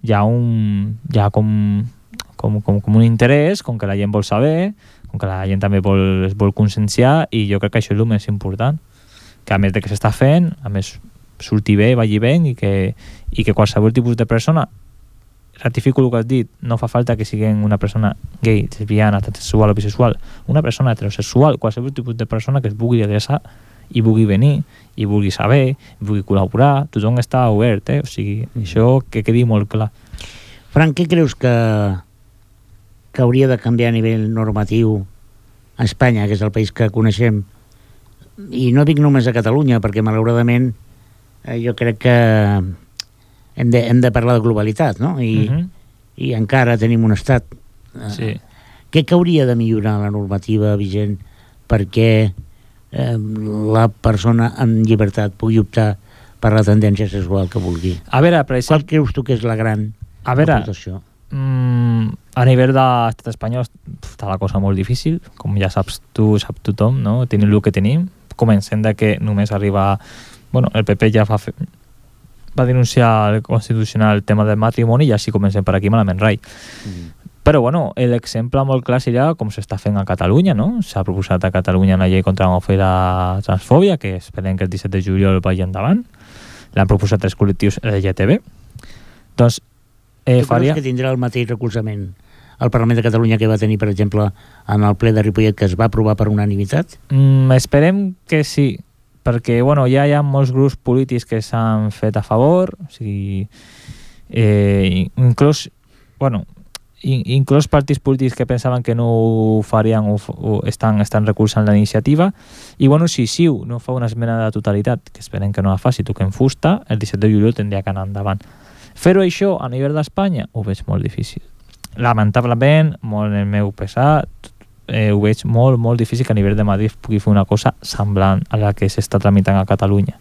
Speaker 2: Hi ha com un interès, com que la gent vol saber, com que la gent també es vol conscienciar, i jo crec que això és el més important, que a més de que s'està fent, a més surti bé, vagi bé, i que qualsevol tipus de persona, ratifico el que has dit, no fa falta que siguin una persona gay, lesbiana, transsexual o bisexual, una persona heterosexual, qualsevol tipus de persona que es vulgui adreçar i vulgui venir, i vulgui saber, i vulgui col·laborar, tothom està obert, o sigui, això que quedi molt clar.
Speaker 1: Frank, què creus que hauria de canviar a nivell normatiu a Espanya, que és el país que coneixem? I no dic només a Catalunya, perquè malauradament jo crec que hem de parlar de globalitat, no? I encara tenim un estat.
Speaker 2: Sí.
Speaker 1: Què hauria de millorar la normativa vigent perquè la persona en llibertat pugui optar per la tendència sexual que vulgui?
Speaker 2: A veure, per exemple...
Speaker 1: Qual creus tu que és la gran aportació?
Speaker 2: A nivell de l'estat espanyol està la cosa molt difícil, com ja saps tu, sap tothom, no? Tenim el que tenim. Comencem de que només arriba... Bueno, el PP ja va denunciar al Constitucional el tema del matrimoni i així comencem per aquí malament rai. Però bueno, l'exemple molt clar seria com s'està fent a Catalunya, no? S'ha proposat a Catalunya una llei contra l'homofòbia i la transfòbia, que esperem que el 17 de juliol vagi endavant. L'han proposat 3 col·lectius LGTB. Doncs
Speaker 1: tu creus que tindrà el mateix recolzament al Parlament de Catalunya que va tenir, per exemple, en el ple de Ripollet, que es va aprovar per unanimitat?
Speaker 2: Esperem que sí, perquè bueno, ja hi ha molts grups polítics que s'han fet a favor, o sigui, inclús partits polítics que pensaven que no ho farien o estan recolzant la iniciativa, i bueno, si CiU no fa una esmena de totalitat, que esperem que no la faci, toquem fusta, el 17 de juliol tindria que anar endavant. Fer-ho això a nivell d'Espanya ho veig molt difícil. Lamentablement, molt en el meu pesar, ho veig molt, molt difícil que a nivell de Madrid pugui fer una cosa semblant a la que s'està tramitant a Catalunya.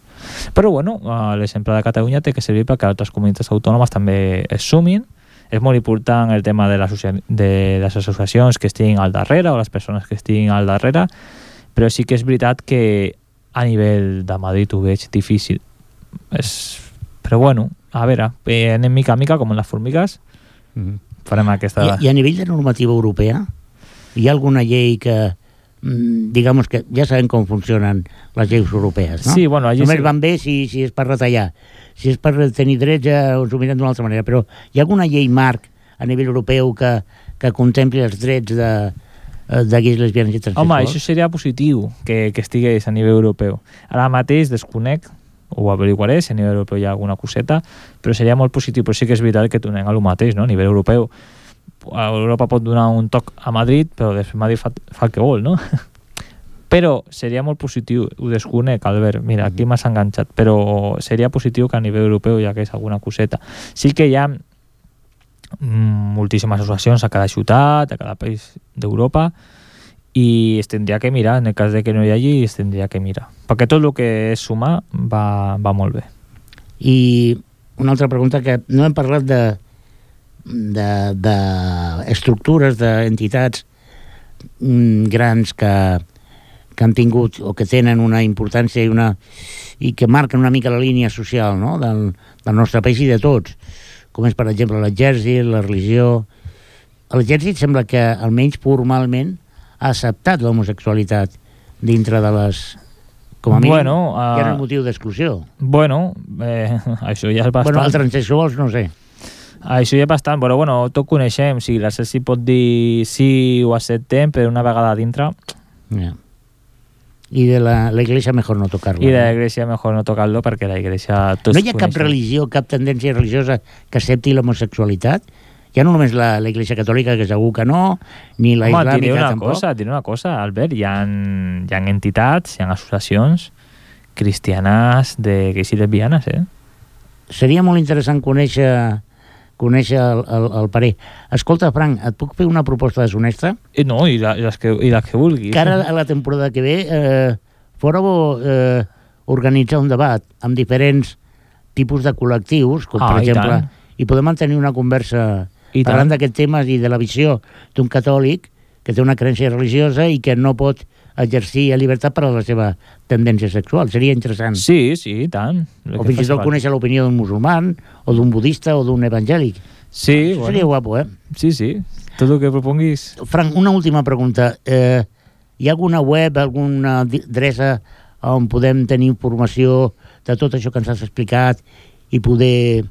Speaker 2: Però bueno, l'exemple de Catalunya té que servir perquè altres comunitats autònomes també es sumin. És molt important el tema de les associacions que estiguin al darrere o les persones que estiguin al darrere, però sí que és veritat que a nivell de Madrid ho veig difícil. Però bueno, a veure, anem mica a mica com en les formigues, farem aquesta...
Speaker 1: I a nivell de normativa europea hi ha alguna llei que digamos que ja sabem com funcionen les lleis europees, no?
Speaker 2: Sí, bueno,
Speaker 1: només van bé si és per retallar. Si és per tenir drets ja us ho mirem d'una altra manera, però hi ha alguna llei marc a nivell europeu que contempli els drets de gais, lesbianes i transsexuals?
Speaker 2: Home, això seria positiu que estigués a nivell europeu. Ara mateix desconec, ho averiguaré, si a nivell europeu hi ha alguna coseta, però seria molt positiu, però sí que és veritat que tornem a lo mateix, no? A nivell europeu Europa pot donar un toc a Madrid, però després Madrid fa el que vol, no? Però seria molt positiu, ho desconec, Albert, mira, aquí m'has enganxat, però seria positiu que a nivell europeu hi hagués alguna coseta. Sí que hi ha moltíssimes associacions a cada ciutat, a cada país d'Europa, i es tindria que mirar, en el cas de que no hi hagi, es tindria que mirar. Perquè tot el que és sumar va molt bé.
Speaker 1: I una altra pregunta, que no hem parlat d'estructures, d'entitats grans que han tingut o que tenen una importància i que marquen una mica la línia social, no? del nostre país i de tots, com és per exemple l'exèrcit, la religió. L'exèrcit sembla que almenys formalment ha acceptat l'homosexualitat dintre de les Com a mínim,
Speaker 2: Bueno,
Speaker 1: ja no és motiu d'exclusió.
Speaker 2: Bueno, això ja és bastant.
Speaker 1: Bueno, els transsexuals no sé.
Speaker 2: Això ja és bastant, però bueno, tot coneixem. Si la Celsi pot dir sí ho acceptem, però una vegada dintre...
Speaker 1: Yeah. I de la iglesia mejor no tocar-lo.
Speaker 2: I de la iglesia mejor no tocar-lo perquè la iglesia...
Speaker 1: No hi ha cap religió, cap tendència religiosa que accepti l'homosexualitat? Ja no només la iglesia catòlica, que segur que no, ni la islàmica tampoc.
Speaker 2: Diré una cosa, Albert, hi ha entitats, hi ha associacions cristianes de gays i lesbianes,
Speaker 1: Seria molt interessant conèixer el parer. Escolta, Frank, et puc fer una proposta deshonesta?
Speaker 2: No, i les que vulguis.
Speaker 1: Que ara, a la temporada que ve, fora bo organitzar un debat amb diferents tipus de col·lectius, com per exemple, i podem mantenir una conversa parlant d'aquest tema i de la visió d'un catòlic que té una creença religiosa i que no pot exercir a llibertat per a la seva tendència sexual. Seria interessant.
Speaker 2: Sí, i tant.
Speaker 1: O fins i tot conèixer l'opinió d'un musulman, o d'un budista, o d'un evangèlic.
Speaker 2: Sí,
Speaker 1: bueno. Seria guapo,
Speaker 2: Sí. Tot el que proponguis.
Speaker 1: Frank, una última pregunta. Hi ha alguna web, alguna adreça on podem tenir informació de tot això que ens has explicat i poder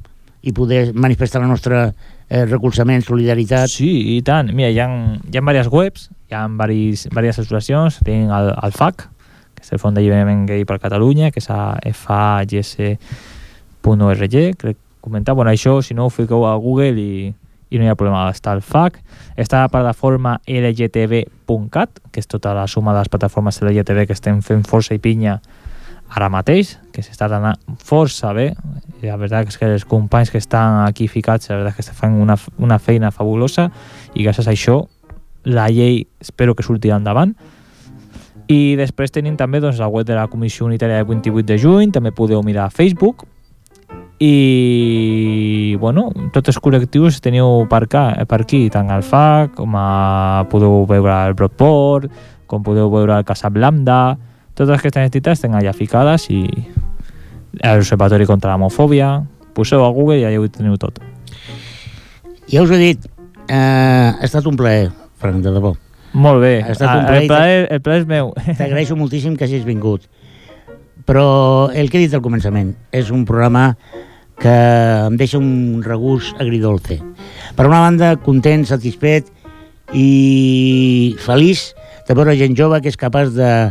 Speaker 1: manifestar el nostre recolzament, solidaritat?
Speaker 2: Sí, i tant. Mira, hi ha diverses webs, hi ha diverses associacions. Tenim el FAC, que és el Fons d'Alliberament Gay per Catalunya, que és a fags.org, crec comentar. Bueno, això, si no, ho fiqueu a Google i no hi ha problema. Està el FAC, està la plataforma lgtb.cat, que és tota la suma de les plataformes LGTB que estem fent força i pinya ara mateix, que s'està anant força bé. La veritat és que els companys que estan aquí ficats, la veritat és que fan una feina fabulosa, i gràcies a això la llei espero que sortirà endavant. I després tenim també la web de la Comissió Unitària del 28 de juny, també podeu mirar a Facebook. I bueno, tots els col·lectius teniu per aquí, tant el FAC com podeu veure el Broadport, com podeu veure el Casab Lambda. Totes aquestes entitats tenen allà ficades, i l'Observatori contra l'Homofòbia. Poseu a Google i allà ho teniu tot.
Speaker 1: Ja us he dit, ha estat un plaer, Frank, de debò.
Speaker 2: Molt bé, el plaer és meu.
Speaker 1: T'agraeixo moltíssim que hagis vingut. Però el que he dit al començament, és un programa que em deixa un regust agridolce. Per una banda, content, satisfet i feliç de veure gent jove que és capaç de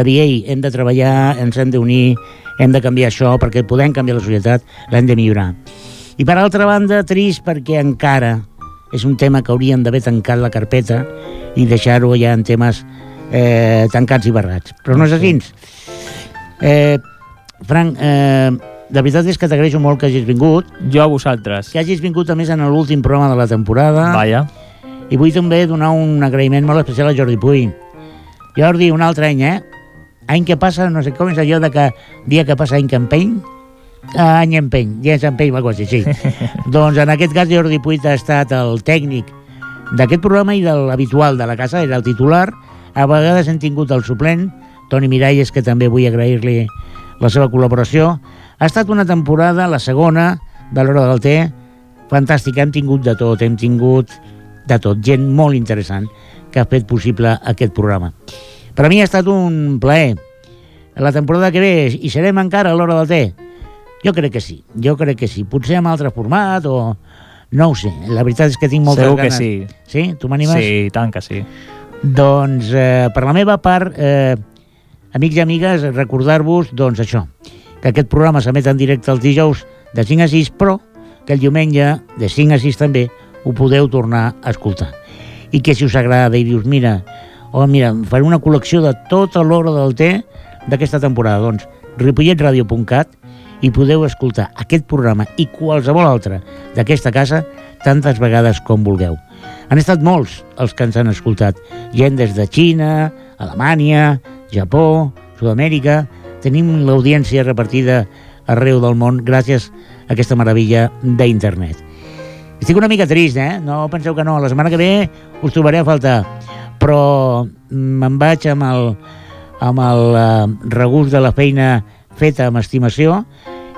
Speaker 1: dir, ei, hem de treballar, ens hem d'unir, hem de canviar això, perquè podem canviar la societat, l'hem de millorar. I per altra banda, trist perquè encara és un tema que haurien d'haver tancat la carpeta i deixar-ho ja en temes tancats i barrats. Però no és així. Frank, la veritat és que t'agraeixo molt que hagis vingut.
Speaker 2: Jo a vosaltres.
Speaker 1: Que hagis vingut, a més, en l'últim programa de la temporada.
Speaker 2: Vaja.
Speaker 1: I vull també donar un agraïment molt especial a Jordi Puy. Jordi, un altre any, Any que passa, no sé com és allò de que dia que passa any que empeny. Any empeny, dia que empeny, va quasi, sí. Doncs en aquest cas Jordi Puy ha estat el tècnic d'aquest programa i de l'habitual de la casa, era el titular. A vegades hem tingut el suplent, Toni Miralles, que també vull agrair-li la seva col·laboració. Ha estat una temporada, la segona, de l'Hora del Té, fantàstica. Hem tingut de tot, gent molt interessant que ha fet possible aquest programa. Per a mi ha estat un plaer. La temporada que ve, hi serem encara a l'Hora del Té? Jo crec que sí. Potser amb altre format o... No ho sé, la veritat és que tinc moltes ganes.
Speaker 2: Segur que sí.
Speaker 1: Sí? Tu m'animes?
Speaker 2: Sí, tant que sí.
Speaker 1: Doncs, per la meva part, amics i amigues, recordar-vos, doncs això, que aquest programa s'emet en directe els dijous de 5 a 6, però que el diumenge de 5 a 6 també ho podeu tornar a escoltar. I que si us agrada i dius, mira, faré una col·lecció de tota l'Hora del Té d'aquesta temporada, doncs ripolletradio.cat, i podeu escoltar aquest programa i qualsevol altre d'aquesta casa tantes vegades com vulgueu. Han estat molts els que ens han escoltat, gent des de Xina, Alemanya, Japó, Sud-amèrica. Tenim l'audiència repartida arreu del món gràcies a aquesta meravella d'internet. Estic una mica trist, No penseu que no, la setmana que ve us trobaré a faltar, però me'n vaig amb el regust de la feina feta amb estimació,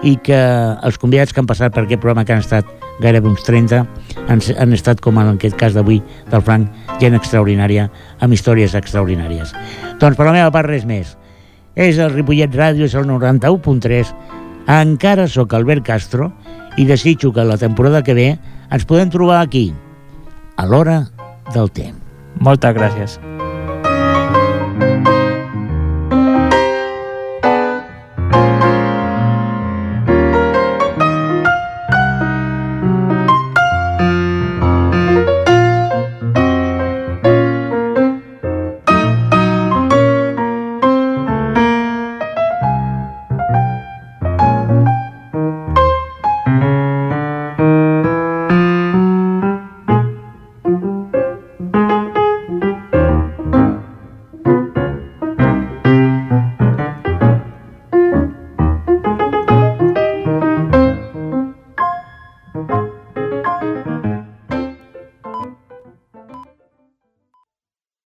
Speaker 1: i que els convidats que han passat per aquest programa, que han estat gairebé uns 30, han estat, com en aquest cas d'avui del Frank, gent extraordinària, amb històries extraordinàries. Doncs per la meva part res més. és el Ripollet Ràdio, és el 91.3. Encara sóc Albert Castro i desitjo que la temporada que ve ens podem trobar aquí, a l'hora del temps.
Speaker 2: Moltes gràcies.